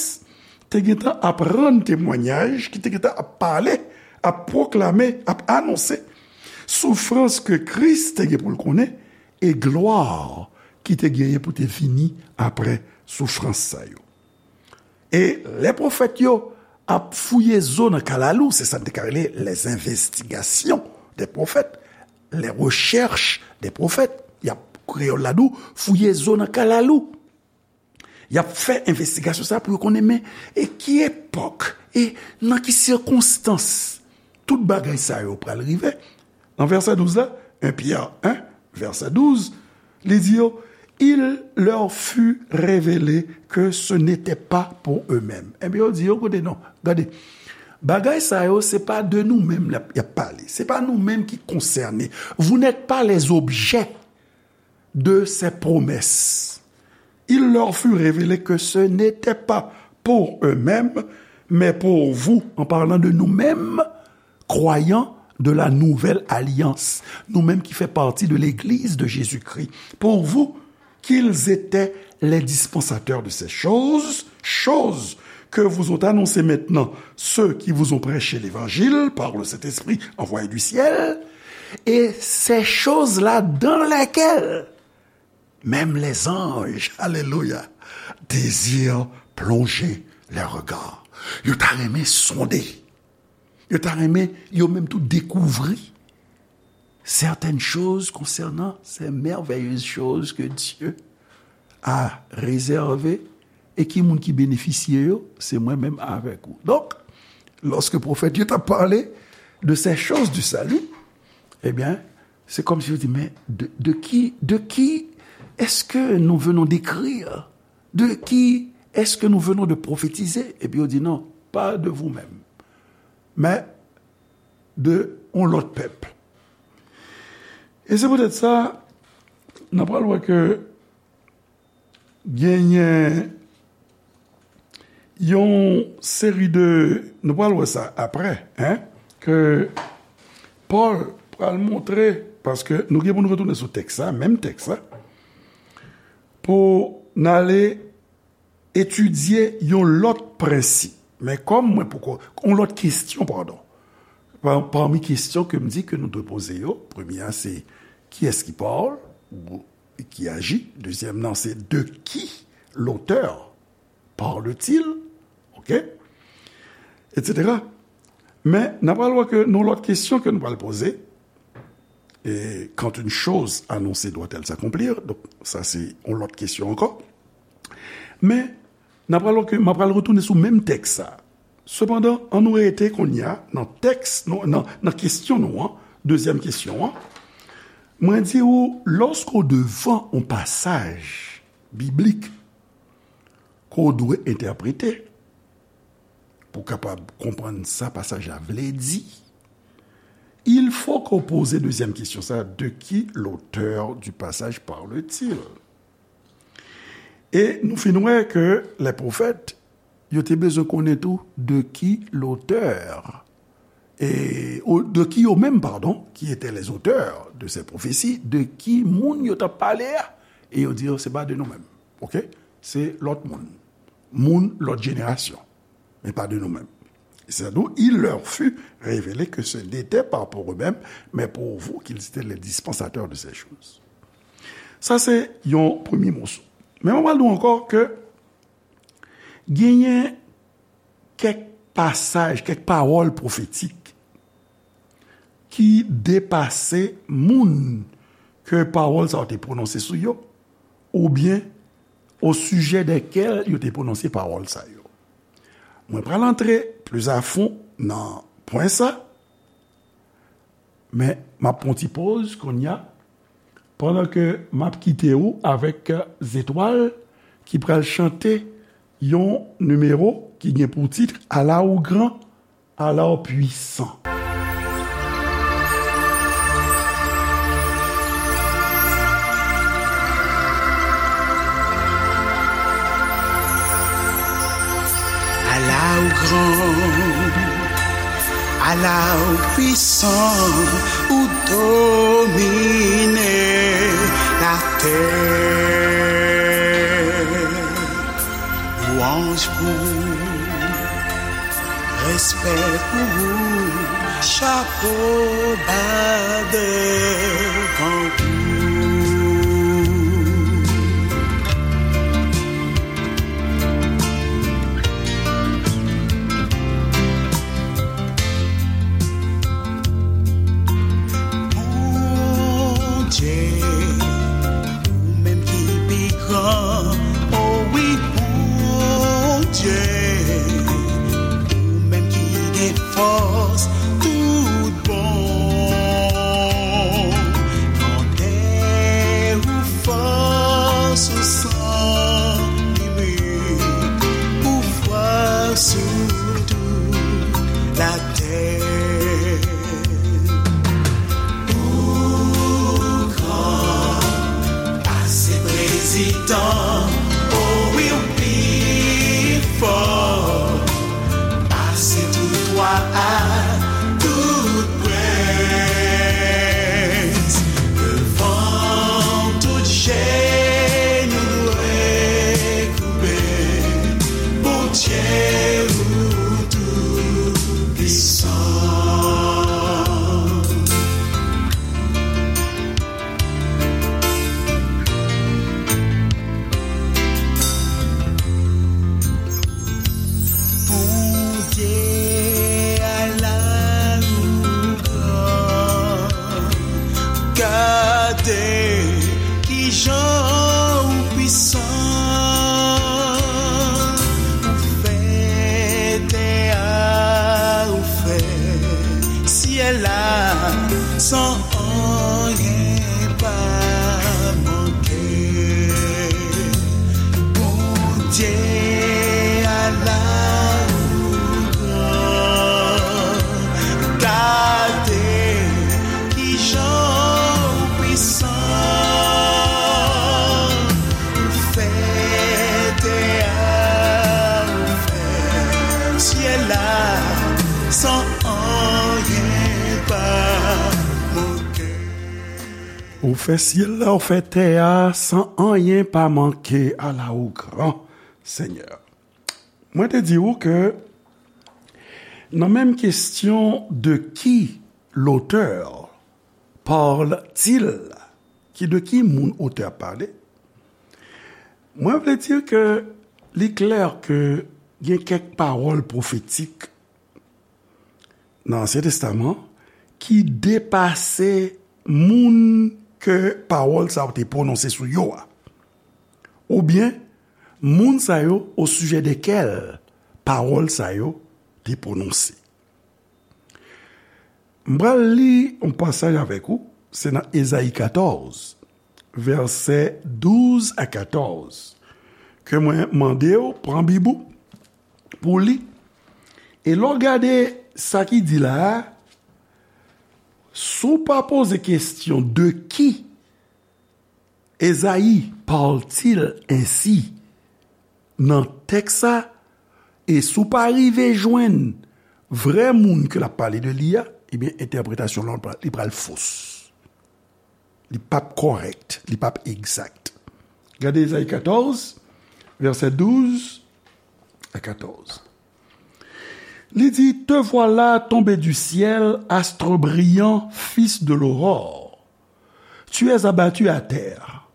te gentan ap rann temwayaj, ki te gentan ap pale, ap pwoklame, ap anonse soufrans ke Kris te gen pou l konnen e glwa ki te genyen pou te vini apre soufrans sa yo. E lè pwofèt yo ap fouye zo nan kalalou, se sa n te ka rele les investigations des prophètes, les recherches des prophètes. Y ap, kreyòl la di w, fouye zo nan kalalou. Y ap fè envestigasyon sa pou yo konnen, men, e ki epòk, e nan ki sikonstans tout bagay sa yo pral rive? Nan vèsè douz la, en Pyè en, vèsè douz, li di yo, il leur fut révélé que ce n'était pas pour eux-mêmes. Ebyen, yo di yo, koute non, gade, bagay sa yo, se pa de nou menm y ap, y ap pale. Se pa nou menm ki konsène. Vous n'êtes pas les objets de ces promesses. Il leur fut révélé que ce n'était pas pour eux-mêmes, mais pour vous, en parlant de nous-mêmes, croyants de la nouvelle alliance, nou menm ki fè pati de l'Église de Jésus-Christ, pour vous, qu'ils étaient les dispensateurs de ces choses, choses que vous ont annoncées maintenant ceux qui vous ont prêché l'Évangile par le Saint-Esprit envoyé du ciel, et ces choses-là dans lesquelles même les anges, alléluia, désirent plonger leurs regards. Yo ta renmen sonde. Yo ta renmen, yo menm tou, dekouvri certaines choses concernant ces merveilleuses choses que Dieu a réservées, e ki moun ki benefisye yo? Se mwen menm avèk ou. Donk, lòske pwofèt yo t ap pale de ces choses du salut, ebyen, se kòmsi yo di, men de, de qui, de qui est-ce que nous venons d'écrire? De qui est-ce que nous venons de prophétiser? Epi yo di, non, pas de vous-même, mais de yon lòt pèp. E se poutèt sa, n ap pral wè ke genyen yon seri de, nou pral wè sa apre, en, ke Pòl pral montre, paske nou gen pou nou retounen sou tèks la, menm tèks la, pou n ale etidye yon lòt prensip. Men kòm mwen poko, yon lòt kesyon, padon. Pa-, pami kesyon ke m di ke nou dwe poze yo, premye a se, kiyès ki Pòl, ou ki aji? Dezyèm nan se, de qui l'auteur parle-t-il? Oke? Etsetera. Men, n ap pral wè ke yon lòt kesyon ke nou pral poze, e, quand une chose annoncée doit-elle s'accomplir? Donk, sa se yon lòt kesyon ankò. Men, n ap pral wè ke m ap pral retounen sou menm tèks sa. Sepandan, an nou rete kounye a nan tèks, nou, nan, nan kesyon nou an, dezyèm kesyon an. Mwen di ou, lòske w devan yon pasaj biblik ke w dwe entèprete pou w kapab konprann sa pasaj la vle di, il faut que w poze dezyèm kesyon sa, de qui l'auteur du passage parle-t-il? E nou fin wè ke lè pwofèt, yo te bezwen konnen tou de qui l'auteur e, o, de ki yo menm, padon, qui étaient les auteurs de ces prophéties, de ki moun yo t ap pale a, e yo di, se pa de nou menm, oke? Se lòt moun. Moun lòt jenerasyon, men pa de nou menm. C'est d'où il leur fut révélé que ce n'était pas pour eux-mêmes, mais pour vous qu'ils étaient les dispensateurs de ces choses. Sa se yon premye moso. Men mwen pral di w ankò ke genyen kèk pasaj, kèk pawòl pwofetik ki depase moun ke pawòl sa yo te pwononse sou yo, oubyen o sijè dèkèl yo te pwononse pawòl sa yo. Mwen pral antre plis a fon nan pwen sa, men m ap pran ti poz kounye a, pandan ke m ap kite ou avèk Zetwal ki pral chante yon nimewo ki gen pou tit Ala ou gran, ala ou pwisan. Ala ou gran, ala ou pwisan, ou domine latè. Lwanj pou ou, respè pou ou, chapo ba devan ou. Bondye, ou menm ki pi gran, o wi, Bondye, ou menm ki gen fòs tout bon. Grandè ou, fòs ou san limit, pouvwa sou tout latè. Ou gran, pase prezidan, o wi, ou pi fò, pase tout wa ak tout prens. Devan w, tout jenou dwe koube, Bondye ou tou pwisan. Bondye, ala ou gran, gade kijan ou pwisan. Ou fè tè a, ou fè syèl la, san anyen pa manke. Bondye, ala ou gran, gade kijan ou pwisan. Ou fè tè a, ou fè syèl la, san anyen pa manke. Ou fè syèl la, ou fè tè a, san anyen pa manke. Ala ou gran, Senyè. Mwen te di ou ke nan menm kesyon de qui l'auteur parle-t-il, ki de ki moun otè a pale, mwen vle di ke li klè ke gen kèk pawòl pwofetik nan Ansyen Testaman ki depase moun ke pawòl sa yo te pwononse sou yo a, oubyen moun sa yo o sijè dekèl pawòl sa yo te pwononse. M pral li yon pasaj avèk ou, se nan Ezayi katòz, vèsè douz a katòz, ke mwen mande w pran Bib ou pou w li. E lè w gade sa ki di la a, si w pa poze kesyon de qui Esaïe parle-t-il ainsi nan tèks sa, e si w pa rive jwenn vrè moun ke l ap pale de li a, ebyen, entèpretasyon l lan, li pral fos. Li p ap kòrèk, li p ap egzak. Gade Ezayi katòz, vèsè douz a katòz. Li di, Te voilà tombé du ciel, astre brillant, fils de l'aurore. Tu es abattu à terre,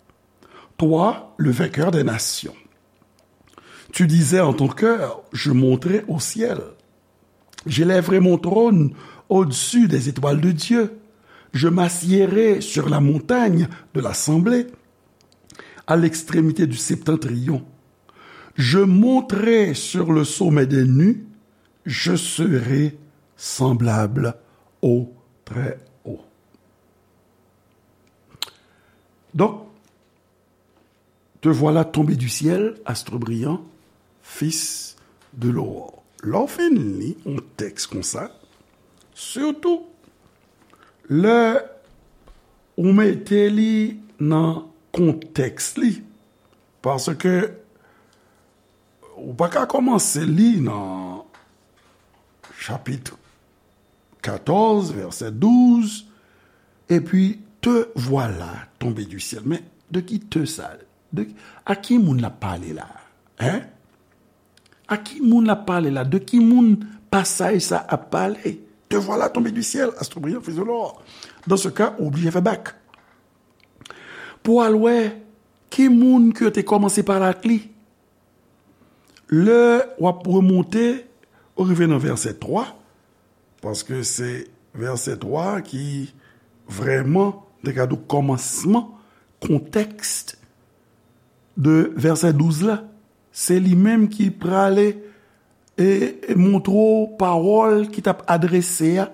toi, le vainqueur des nations. Tu disais en ton cœur, Je monterai au ciel. J'élèverai mon trône au-dessus des étoiles de Dieu. Je m'assiérai sur la montagne de l'assemblée, à l'extrémité du septentrion. Je monterai sur le sommet des nues. Je serai semblable au Très-Haut. Donk, Te voilà tombé du ciel, astre brillant, fils de l'aurore. Lè w fin li yon tèks konsa, sitou lè ou mete li nan kontèks li, paske ou pa ka kòmanse li nan chapit katòz, vèsè douz, epi te voilà tombé du ciel. Men, de ki te sa? De, a ki moun l ap pale la? Hein? A ki moun l ap pale la? De ki moun pasaj sa ap pale? Te voilà tombé du ciel, astre brillant, fils de l'aurore. Dans ce cas, ou oblije fè bak. Pou al wè ki moun ke yo te kòmanse pale ak li. Lè w ap remonte, ou rive nan vèsè twa, paske se vèsè twa ki vrèman, te ka di w kòmansman, kontèks de vèsè douz la. Se li menm ki prale e, e montre w pawòl ki t ap adrese a,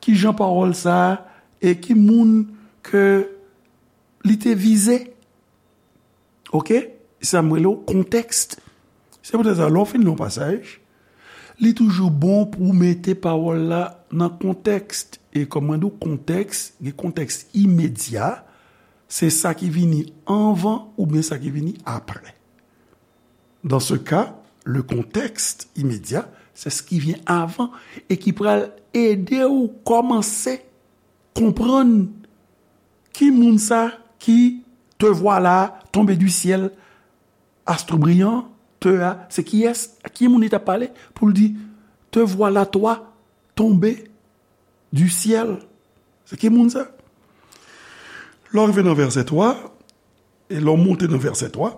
ki jan pawòl sa a, e ki moun ke li te vize. Oke? Sa m rele w kontèks. Se poutèt sa, lè w fin li yon pasaj, li toujou bon pou w mete pawòl la nan kontèks. E kòm mwen di w, kontèks, gen kontèks imedya, se sa ki vini anvan oubyen sa ki vini apre. Dans ce cas, le contexte immédiat, c'est ce qui vient avant e ki pral ede w kòmanse konprann ki moun sa ki te voilà tombé du ciel, astre brillant, te a, se kiyès, ki moun li t ap pale pou l di, te voilà toi tombé du ciel. Se ki moun sa? Lè w rive nan vèsè twa, e lè w monte nan vèsè twa,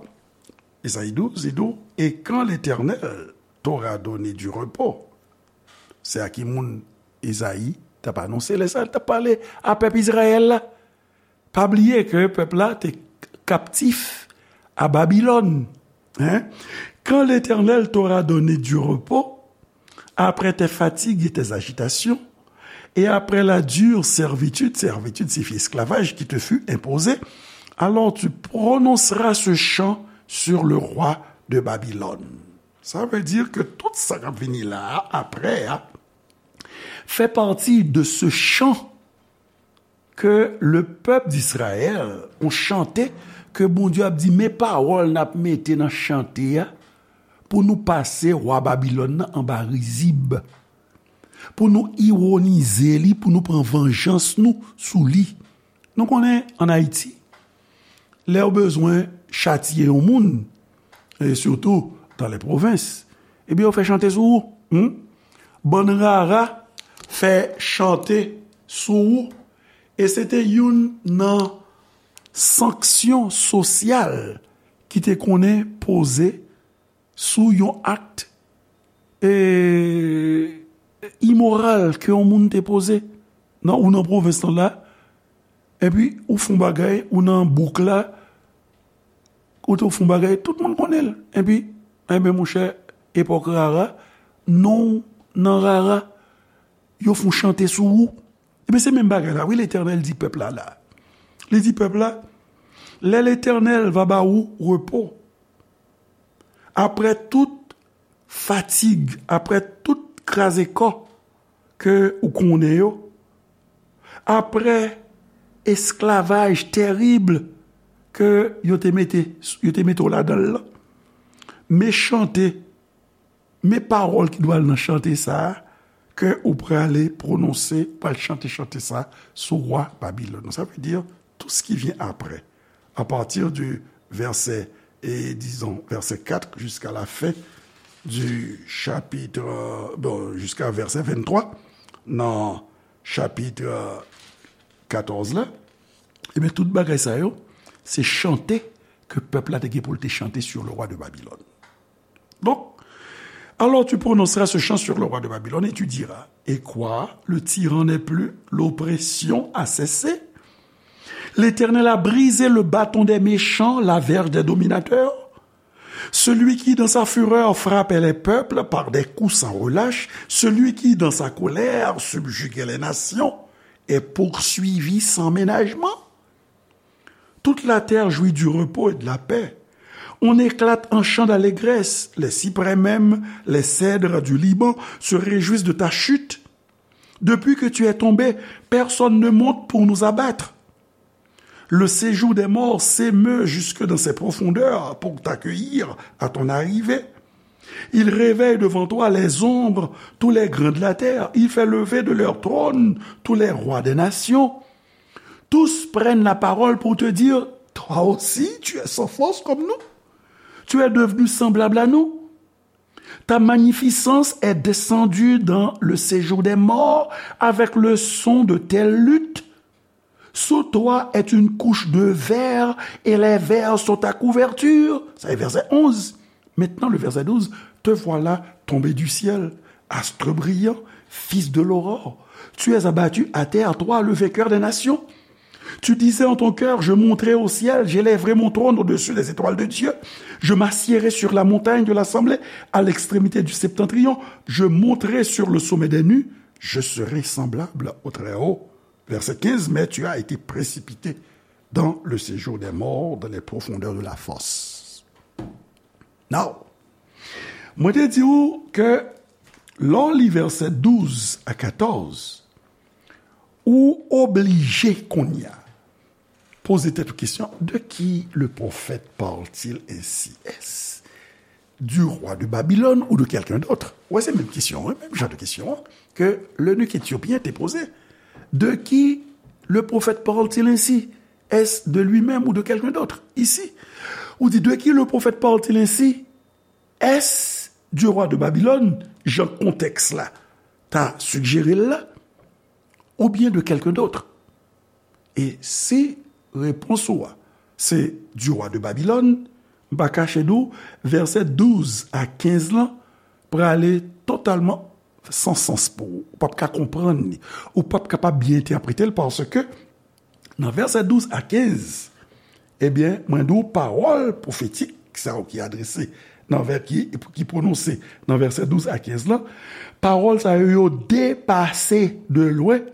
Ezayi douz, li di w, et quand l'Éternel t'aura donné du repos. Se a ki moun Ezayi t ap anonse lè sa l t ap pale a pèp Izrayèl la. Pa bliye ke pèp la te kaptif a Babilòn. Hein? Quand l'Éternel t'aura donné du repos, après tes fatigues et tes agitations, et après la dure servitude, servitude signifie esclavage, qui te fut imposée, alors tu prononceras ce chant sur le roi de Babylone. Sa vle di ke tout sa k ap vini la a, apre a, fait partie de ce chant que le peuple d'Israël ont chanté, ke Bondye ap di, men pawòl n ap mete nan chante a, pou nou pase wa Babilòn nan anba rizib, pou nou iwonize li, pou nou pran vanjans nou sou li. Nou konnen, ann Ayiti, lè yo bezwen chatiye yon moun, e sitou dans les provinces, ebyen, yo fè chante sou ou. Hmm? Bann rara fè chante sou ou. E se te youn nan sanksyon sosyal ki te konnen poze sou yon ak, e, imoral ke yon moun te poze nan, ou nan pwovens lan la, epi ou fè yon bagay, ou nan bouk la, ou te fè yon bagay, tout moun konnen l. Epi, enben, monchè, epòk rara, non w nan rara, yo fè yon chante sou ou. Ebyen, se menm bagay la, wi, Letènèl di pèp la, la. Li di pèp la, lè Letènèl va ba ou repo, apre tout fatig, apre tout kraze kò ke ou konnen yo, apre esklavaj terib ke yo te mete, yo te mete w ladan l lan, men chante, Men pawòl ki dwe al nan chante sa a, ke ou prale pwononse, pral chante chante sa a sou wa Babilòn. Sa vle di, tout ce qui vient après, à partir du verset, et disons, verset quatre jusqu'à la fin du chapitre, bon, jusqu'à verset vingt-trois, nan chapit katòz la, ebyen, tout bagay sa yo, se chante ke pèp la te gen pou l te chante sur le roi de Babylone. Donc, alors tu prononceras ce chant sur le roi de Babylone et tu diras, et quoi, le tyran n'est plus, l'oppression a cessé. L'Éternel a brisé le bâton des méchants, la verge des dominateurs. Celui qui, dans sa fureur, frappait les peuples par des coups sans relâche, celui qui, dans sa colère, subjuguait les nations, est poursuivi sans ménagement. Toute la terre jouit du repos et de la paix. On éclate en chant d'allégresse. Les cyprès même, les cèdres du Liban se réjouissent de ta chute. Depuis que tu es tombé, personne ne monte pour nous abattre. Le séjour des morts s'émeut jusque dans ses profondeurs pour t'accueillir à ton arrivée. Il réveille devant toi les ombres, tous les grands de la terre. Il fait lever de leur trône tous les rois des nations. Tous prennent la parole pour te dire, toi aussi, tu es sans force comme nous. Tu es devenu semblable à nous. Ta magnificence est descendue dans le séjour des morts avec le son de telles luttes. Sous toi est une couche de vers et les vers sont ta couverture. Ça est verset onze. Maintenant, le verset douze. Te voilà tombé du ciel, astre brillant, fils de l'aurore. Tu es abattu à terre, toi, le vainqueur des nations. Tu disais en ton cœur, je monterai au ciel, j'élèverai mon trône au-dessus des étoiles de Dieu. Je m'assiérai sur la montagne de l'assemblée, à l'extrémité du septentrion. Je monterai sur le sommet des nues. Je serai semblable au Très-Haut. Verset quinze, mais tu as été précipité dans le séjour des morts, dans les profondeurs de la fosse. Now, mwen te di w ke lè w li vèsè douz a katòz, ou oblije kounye a poze tèt ou kesyon, de qui le prophète parle-t-il ainsi? Est-ce du roi de Babylone ou de quelqu'un d'autre? Wè, se menm kesyon an, menm jan de kesyon an ke l'eunuque éthiopien te poze. De qui le prophète parle-t-il ainsi? Est-ce de lui-même ou de quelqu'un d'autre? Ici, ou di, de qui le prophète parle-t-il ainsi? Est-ce du roi de Babylone, jan kontèks la ta sijere l la, oubyen de quelqu'un d'autre? E si repons ou a se du roi de Babylone, m pa kache di w, vèsè douz a kenz lan prale totalman san sans pou ou. Ou p ap ka konprann li. Ou p ap kapab byen entèprete l paske nan vèsè douz a kenz, ebyen, mwen di w pawòl pwofetik sa yo ki adrese nan vè-, ki, ki pwononse nan vèsè douz a kenz lan, pawòl sa yo, yo depase de lwen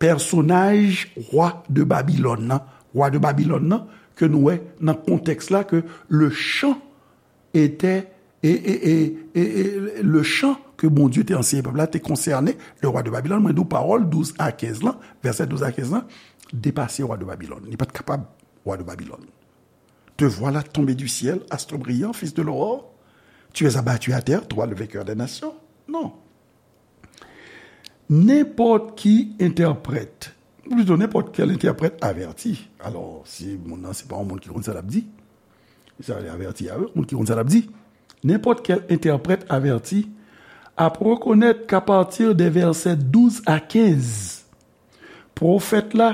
pèsonaj wa de Babilòn nan. Wa de Babilòn nan, ke nou wè nan kontèks la ke le chant était, e, e, e, e, e, le chant ke Bondye te anseye pèp la te konsène le roi de Babylone. Mwen di w pawòl douz a kenz lan, vèsè douz a kenz lan, depase wa de Babilòn. Li pa t kapab wa de Babilòn. Te voilà tombé du ciel, astre brillant, fils de l'aurore. Tu es abattu à terre, toi le vainqueur des nations. Non. Nenpòt ki entèprèt, ou plito nenpòt kèl entèprèt avèti. Alò, si moun nan se pa yon moun ki konn sa l ap di, sa vle avèti a wi, moun ki konn sa l ap di. Nenpòt kèl entèprèt avèti ap rekonèt k'à partir de vèsè douz a kenz, pwofèt la,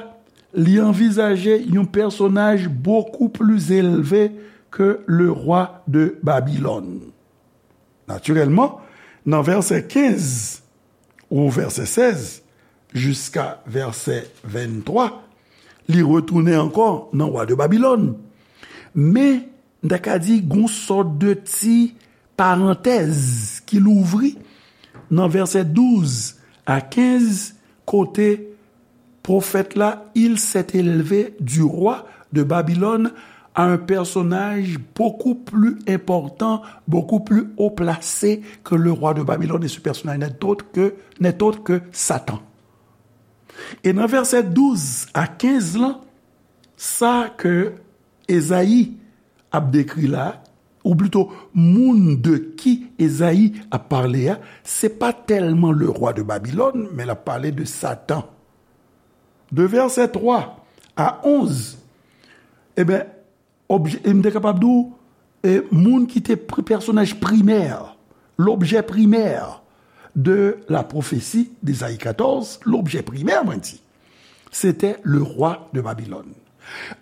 li anvizaje yon pèsonaj beaucoup plus élevé que le roi de Babylone. Natirèlman, nan vèsè kenz ou vèsè sèz jiska vèsè venntwa, li retounen ankò nan wa de Babilòn. Men, m ta ka di, gon sòt de ti parantèz ki louvri nan vèsè douz a kenz, kote pwofèt la, il s'est élevé du roi de Babylone à un personnage beaucoup plus important, beaucoup plus haut placé que le roi de Babylone. Et ce personnage n'est autre que, n'est autre que Satan. E nan vèsè douz a kenz lan, sa ke Ezayi ap dekri la, ou plito moun de ki Ezayi ap pale a, se pa tèlman le rwa de Babilòn, men l ap pale de Satan. De vèsè twa a onz, e ben, obje, m te kapab di w, e, moun ki te pri-, pèsonaj primè, lobjè primè de la pwofesi de Ezayi katòz, lobjè primè, mwen di, se te le rwa de Babilòn.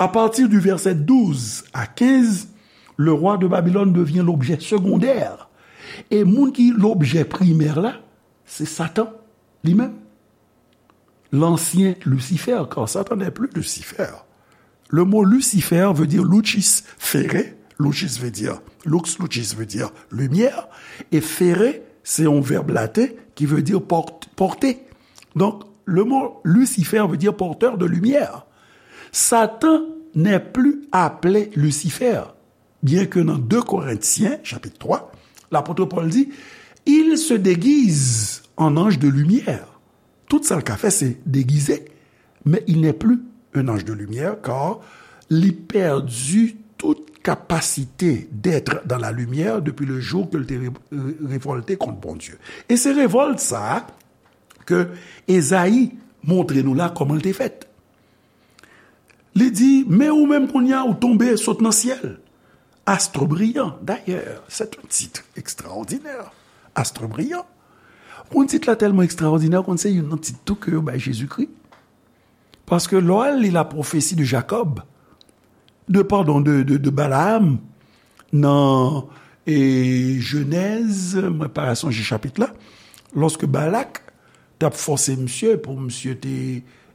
A pati di vèsè douz a kenz, le rwa de Babilòn devyen lobjè segondè. E moun ki lobjè primè la, se Satan li menm. L'ancien Lucifer, car Satan n'est plus Lucifer. Le mot Lucifer veut dire lucis ferre. Lucis veut dire, lux lucis veut dire lumière. Et ferre, c'est un verbe latin qui veut dire porte, porter. Donc, le mot Lucifer veut dire porteur de lumière. Satan n'est plus appelé Lucifer, bien que dans deux Corinthiens, chapitre trois, l'apôtre Paul dit, il se déguise en ange de lumière. Tout sa l ka fè, se degize, mais il n'est plus un ange de lumière, car li pèdi tout kapasite d'être dans la lumière depuis le jour ke l te re-, re-, revòlte kont Bondye. E se revòlt sa a ke Ezayi montre nou la kòman l te fèt. Li di, men ou menm kounye a, ou tonbe sot nan syèl. Astre brillant. D'ailleurs, c'est un titre extraordinaire. Astre brillant. Pou tit la tèlman ekstraòdinè, ou konn se youn nan tit tou ke yo bay Jezikri. Paske lè w al li la pwofesi de Jakòb, de, padon, de, de, de Balaam, nan, e, Jenèz, mwen pa sonje chapit la, lòske Balak t ap fòse misye pou misye te,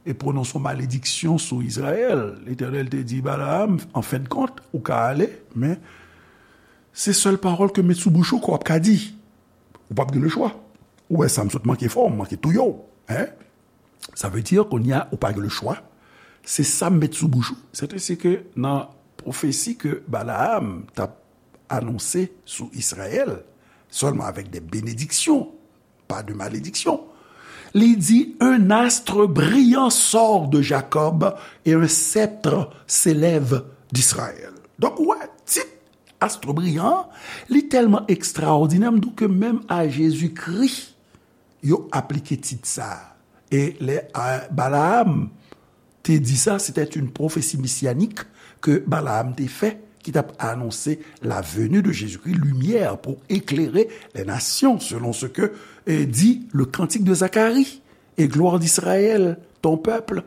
e, pwononse yon malediksyon sou Izrayèl. Letènèl te di Balaam, an fen de kont, ou ka ale, men se sèl pawòl ke m met sou bouch ou ke w ap ka di. Ou p ap gen lechwa. Ou wè sa, m sot manke fè w, m manke touye w. Hein? Sa vle di, kounye a, ou pa gen lechwa. Se sa m met sou bouch ou. Sètadi ke nan pwofesi ke Balaam t ap anonse sou Izrayèl, sèlman avèk de benediksyon, pas de malédiction. Li di, un astre brillant sort de Jacob et un sceptre s'élève d'Israël. Donk, ou wè, tit astre brillant, li tèlman ekstraòdinè, m di w ke menm a Jezikri, yo aplike tit sa a. E lè, a, Balaam te di sa, c'était une prophétie messianique que Balaam te fè, ki t ap anonse la venue de Jésus-Christ, lumière pour éclairer les nations, selon ce que, eh, dit le cantique de Zacharie, et gloire d'Israël, ton peuple.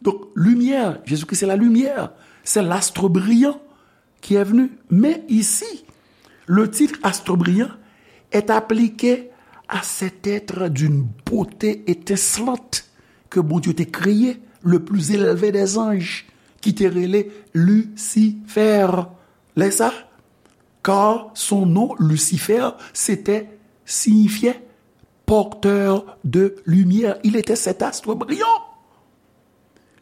Donc, lumière, Jésus-Christ, c'est la lumière, c'est l'astre brillant qui est venu. Mais ici, le titre astre brillant est appliqué à cet être d'une beauté étincelante que Bondye te kreye, le plus élevé des anges, ki te rele Lucifer. Lè sa, car son nom, Lucifer, c'était, signifiait porteur de lumière. Il était cet astre brillant.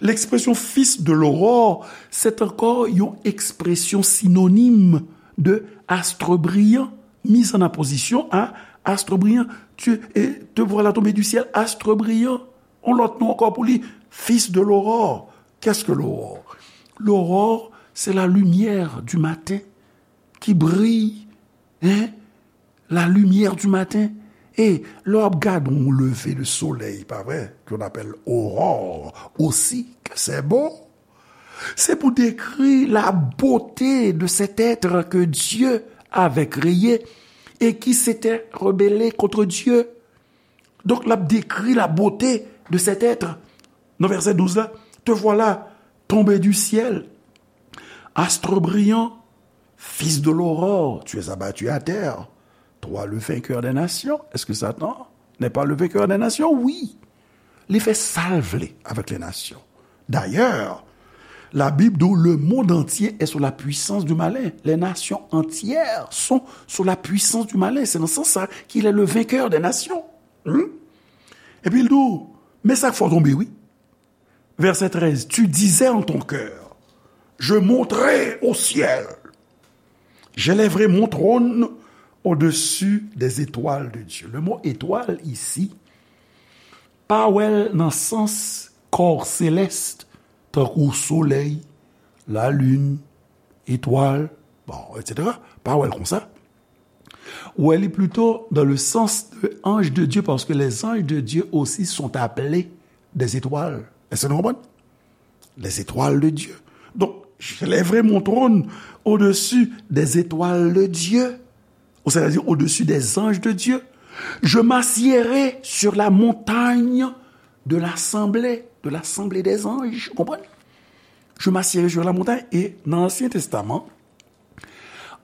L'expression fils de l'aurore, c'est encore une expression synonyme de astre brillant, mise en opposition à astre brillant. Tu, et te voilà tombé du ciel, astre brillant. On lòt non ankò pou li, fils de l'aurore. Qu'est-ce que l'aurore? L'aurore, c'est la lumière du matin qui brille, hein? La lumière du matin. E lè w ap gade yon leve de solèy, pa vre, qu'on appelle aurore aussi, que c'est beau. C'est pour décrire la beauté de cet être que Dieu avait créé et qui s'était rebellé contre Dieu. Donk, l ap dekri la beauté de cet être. Nan vèsè douz la, te voilà tombé du ciel, astre brillant, fils de l'aurore, tu es abattu à terre, toi le vainqueur des nations. Est-ce que Satan n'est pas le vainqueur des nations? Oui. Li fè sa l vle avec les nations. D'ailleurs, la Bible dit le monde entier est sous la puissance du malin. Les nations entières sont sous la puissance du malin. C'est dans ce sens-là qu'il est le vainqueur des nations. Hmm? Epi l di w, men sa k fè w tonbe, wi. Vèsè trèz, tu disais en ton cœur, je monterai au ciel. J'élèverai mon trône au-dessus des étoiles de Dieu. Le mot étoile ici, pa wè l nan sans kò selès, tankou solèy, lalin, etwal, bon, etsetera. pa wè l konsa. Ou wè li plito dans le sens de ange de Dieu, parce que les anges de Dieu aussi sont appelés des étoiles. Èske nou konprann? Les étoiles de Dieu. Donc, j'élèverai mon trône au-dessus des étoiles de Dieu, ou c'est-à-dire au-dessus des anges de Dieu. Je m'assiérai sur la montagne de l'assemblée, de l'assemblée des anges. Ou konprann? Je m'assiérai sur la montagne. E nan Ansyen Testaman,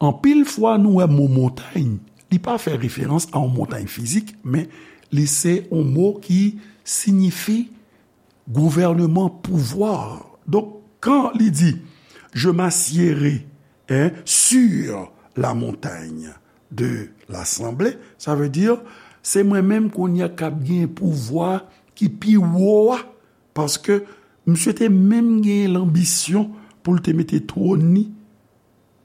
anpil fwa nou wè mo montay, li pa fè referans a yon montay fizik, men li se yon mo ki siyifi gouvènman, pouvwa. Donk, kan li di, je m'assiérai, hein, sur la montagne de l'assemblée, sa vle di, se mwen menm kounye a k ap gen pouvwa ki pi wo a, paske misye te menm gen lanbisyon pou l te mete twòn li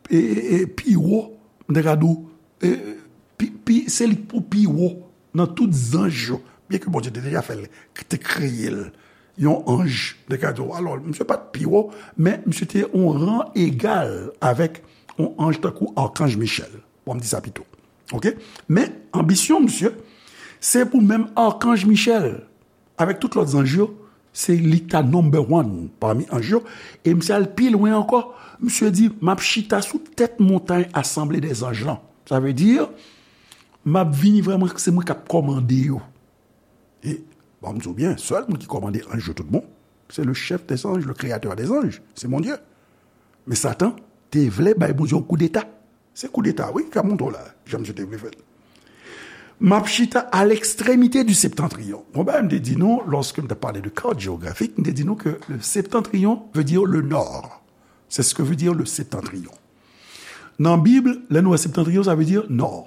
e, e, e pi wo, m te ka di w, e, pi, pi, se li k pou pi wo nan tout zanj yo. Byen ke Bondye te deja fè l, te kreye l, yon anj, m te ka di w, alò, misye pa t pi wo, men misye te yon ran egal avèk yon anj tankou Akanj Michèl. Bon, m di sa pito. Oke? Men, anbisyon misye, se pou menm Akanj Michèl, avèk tout lòt zanj yo, se li k ta number one pami anj yo. E misye al pi lwen ankò. Misye di, m ap chita sou tèt montay asanble dè zanj lan. Sa vle di, m ap vini vrèman, se mwen k ap kòmande yo. E, bon, m di w byen, sèl moun ki kòmande anj yo tout bon, se le chef des anges, le créateur des anges, se Bondye. Men Satan te vle bay Bondye yon koudeta. Se koudeta, wi, k ap monte w la, jan misye te vle fè l. M ap chita à l'extrémité du septentrion. Bon, bagay m te di nou, lorsque m te pale de carte géographique, m te di nou que le septentrion veut dire le nord. C'est ce que veut dire le septentrion. Nan Bib, lè nou wè septentrion, sa vle di nò.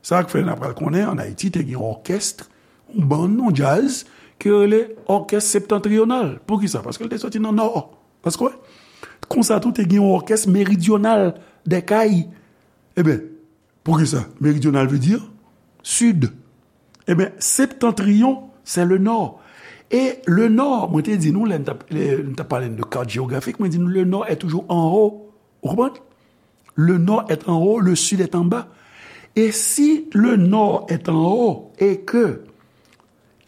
Sa k fè n ap pral konnen, ann Ayiti, te gen yon òkès, yon bann, yon djaz, ki rele òkès septantriyonal. Poukisa? Paske l te soti nan nò. Paske, konsa tou, te gen yon òkès meridyonal dè kay. Ebyen, poukisa? Meridyonal vle di sid. Ebyen, septantriyon, c'est le nord. E le nord, mwen te di nou, lè n t ap, lè n t ap pale de carte géographique, mwen di nou, le nord est toujours en haut. Ou konprann? Le nord est en haut, le sud est en bas. Et si le nord est en haut et que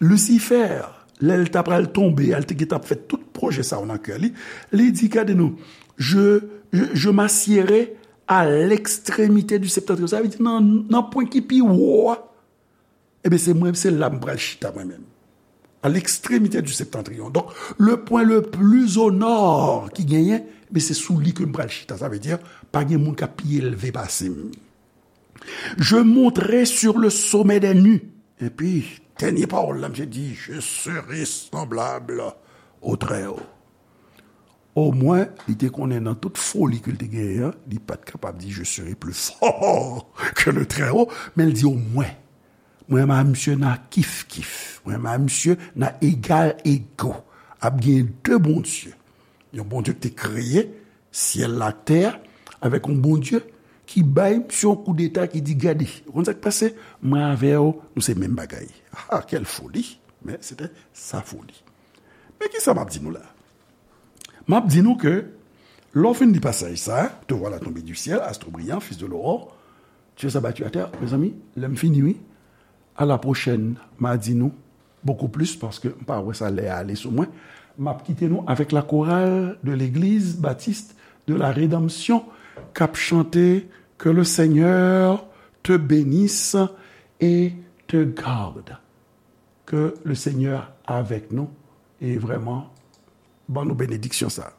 Lucifer, lè l ta pral tonbe a, l te gentan ap fè tout pwojè sa yo nan kè li, li di, gade non, je, je, je m'assiérai à l'extrémité du septentrion. Sa vle di nan, nan pwen ki pi wo a, ebyen, se mwen, se la m pral chita mwen menm. À l'extrémité du septentrion. Donk, le pwen le pli o nò ki genyen, ebyen, se sou li ke m pral chita. Sa vle di, pa gen moun k ap pi elve pase m. Je monterai sur le sommet des nues. Epi, dènye pawòl la, misye di, je serai semblable au Très-Haut. Omwen, li te konnen nan tout foli ke l te genyen an, li pa t kapab di, je serai plus fort que le Très-Haut, men l di omwen. Mwen a misye n a kif kif. Mwen a misye n a egal ego. Ap gen de Bondye. Yon Bondye ki te kreye syèl la ak tè a, avèk yon Bondye ki bay misye yon koudeta, ki di, gade, ou konn sa k pase? Mwen avè w, nou se menm bagay. Ah, quelle folie! Men se te sa foli. Men kisa m ap di nou la? M ap di nou ke, lè w fin li pasaj sa, te voilà tombé du ciel, astre brillant, fils de l'aurore, Dieu s'abattit à terre. Mezanmi, lè m fini, wi. À la prochaine, m a di nou beaucoup plus, paske m pa wè sa lè a ale sou mwen. M ap kite nou avec la chorale de l'église baptiste de la rédemption k ap chante Que le Seigneur te bénisse et te garde. Que le Seigneur avec nous. E vrèman, ban nou benediksyon sa.